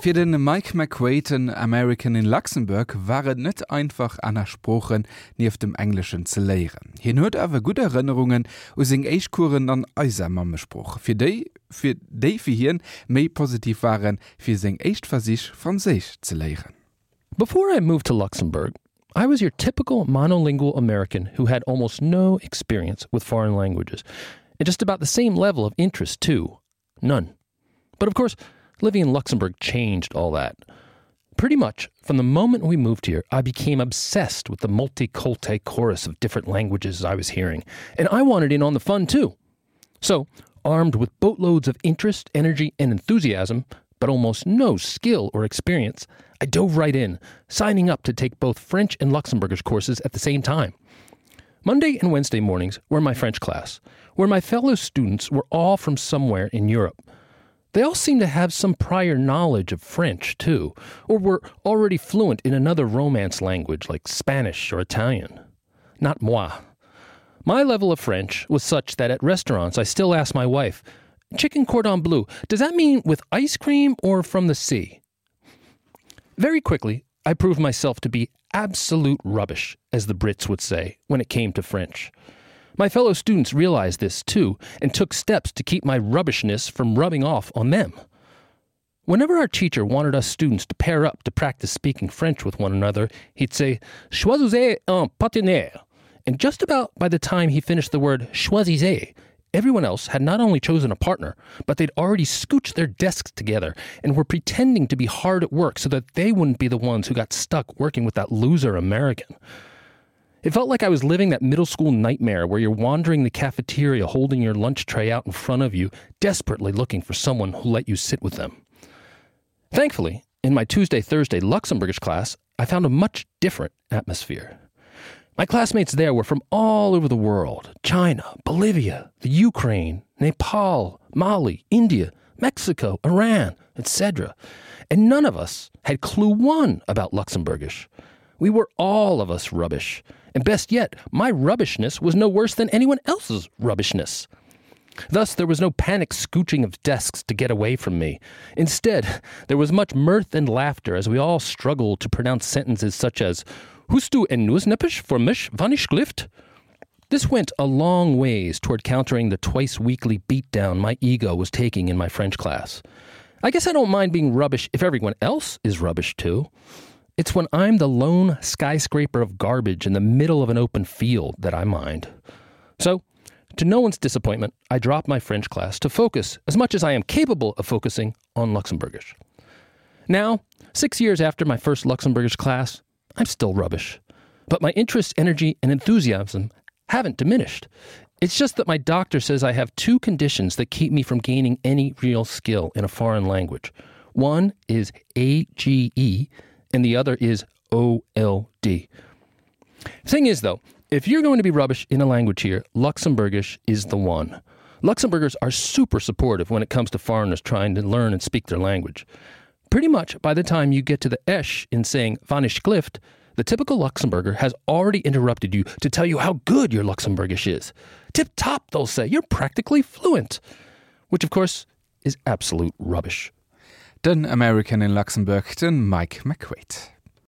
Für den Mike McQuaid, American in Luxemburg, waren nicht einfach an Sprachen neben dem Englischen zu lehren. Hier hat aber gute Erinnerungen aus den Eichkuren an unser Mammesspruch. Für die hier mehr positiv waren, für sein Eichversich Französisch zu lehren. Before I moved to Luxembourg, I was your typical monolingual American who had almost no experience with foreign languages, and just about the same level of interest, too. None. But of course, living in Luxembourg changed all that. Pretty much, from the moment we moved here, I became obsessed with the multiculti chorus of different languages I was hearing, and I wanted in on the fun, too. So, armed with boatloads of interest, energy, and enthusiasm, but almost no skill or experience, I dove right in, signing up to take both French and Luxembourgish courses at the same time. Monday and Wednesday mornings were my French class, where my fellow students were all from somewhere in Europe. They all seemed to have some prior knowledge of French, too, or were already fluent in another Romance language like Spanish or Italian. Not moi. My level of French was such that at restaurants I still ask my wife, "Chicken cordon bleu, does that mean with ice cream or from the sea?" Very quickly, I proved myself to be absolute rubbish, as the Brits would say, when it came to French. My fellow students realized this, too, and took steps to keep my rubbishness from rubbing off on them. Whenever our teacher wanted us students to pair up to practice speaking French with one another, he'd say, "Choisissez un partenaire." And just about by the time he finished the word choisissez, everyone else had not only chosen a partner, but they'd already scooched their desks together and were pretending to be hard at work so that they wouldn't be the ones who got stuck working with that loser American. It felt like I was living that middle school nightmare where you're wandering the cafeteria holding your lunch tray out in front of you, desperately looking for someone who'll let you sit with them. Thankfully, in my Tuesday-Thursday Luxembourgish class, I found a much different atmosphere. My classmates there were from all over the world: China, Bolivia, the Ukraine, Nepal, Mali, India, Mexico, Iran, etc. And none of us had clue one about Luxembourgish. We were all of us rubbish. And best yet, my rubbishness was no worse than anyone else's rubbishness. Thus, there was no panic scooching of desks to get away from me. Instead, there was much mirth and laughter as we all struggled to pronounce sentences such as, "Hust du en Nussneppisch for mich, wann ich schlift?" This went a long ways toward countering the twice-weekly beatdown my ego was taking in my French class. I guess I don't mind being rubbish if everyone else is rubbish, too. It's when I'm the lone skyscraper of garbage in the middle of an open field that I mind. So, to no one's disappointment, I dropped my French class to focus, as much as I am capable of focusing, on Luxembourgish. Now, 6 years after my first Luxembourgish class, I'm still rubbish. But my interest, energy, and enthusiasm haven't diminished. It's just that my doctor says I have two conditions that keep me from gaining any real skill in a foreign language. One is AGE, and the other is OLD. Thing is, though, if you're going to be rubbish in a language here, Luxembourgish is the one. Luxembourgers are super supportive when it comes to foreigners trying to learn and speak their language. Pretty much by the time you get to the esh in saying "wann ich schlift," the typical Luxembourger has already interrupted you to tell you how good your Luxembourgish is. Tip-top, they'll say. You're practically fluent. Which, of course, is absolute rubbish. Den American in Luxemburg, den Mike McQuaid.